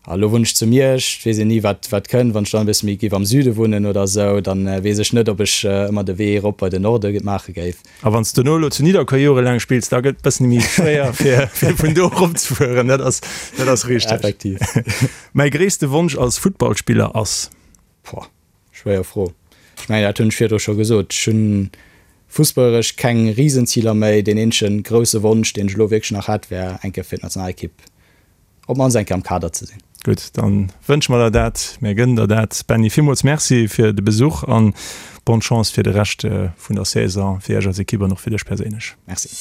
D: A lo wunnen ech zu Miersch, et weess een ni wat wat kënnt. Wann ech dann e bësse méi géif am Süde wunnen oder esou, dann weess ech net, ob ech ëmmer de Wee erop bei den Norde maache géif.
C: A wann s de dono elo zu Nidderkuer jorelaang spills, da gëtt et bëssen méi schwéier fir fir vun do erop ze fueren. Dat ass dat ass richteg.
D: Effektiv.
C: Mäi gréisste Wonsch als Futtballspiller ass?
D: Pouah, schwéier Fro. Ech mengen, dat hunn ech virdru scho gesot. Ech hunn fussballeresch keng Risenziler méi. Deen eenzege grousse Wonsch, deen ech elo wierklech nach hätt, wär eng Kéier fir d'Nationalekipp op mannst eng Kéier am Kader ze sinn.
C: Gutt, dann wënsche mer der dat, mir gënnen der dat. Benny, villmools Merci fir de Besuch an bonne Chance fir de Rescht vun der Saison, fir Iech als Ekipp an och fir dech perséinlech.
D: Merci.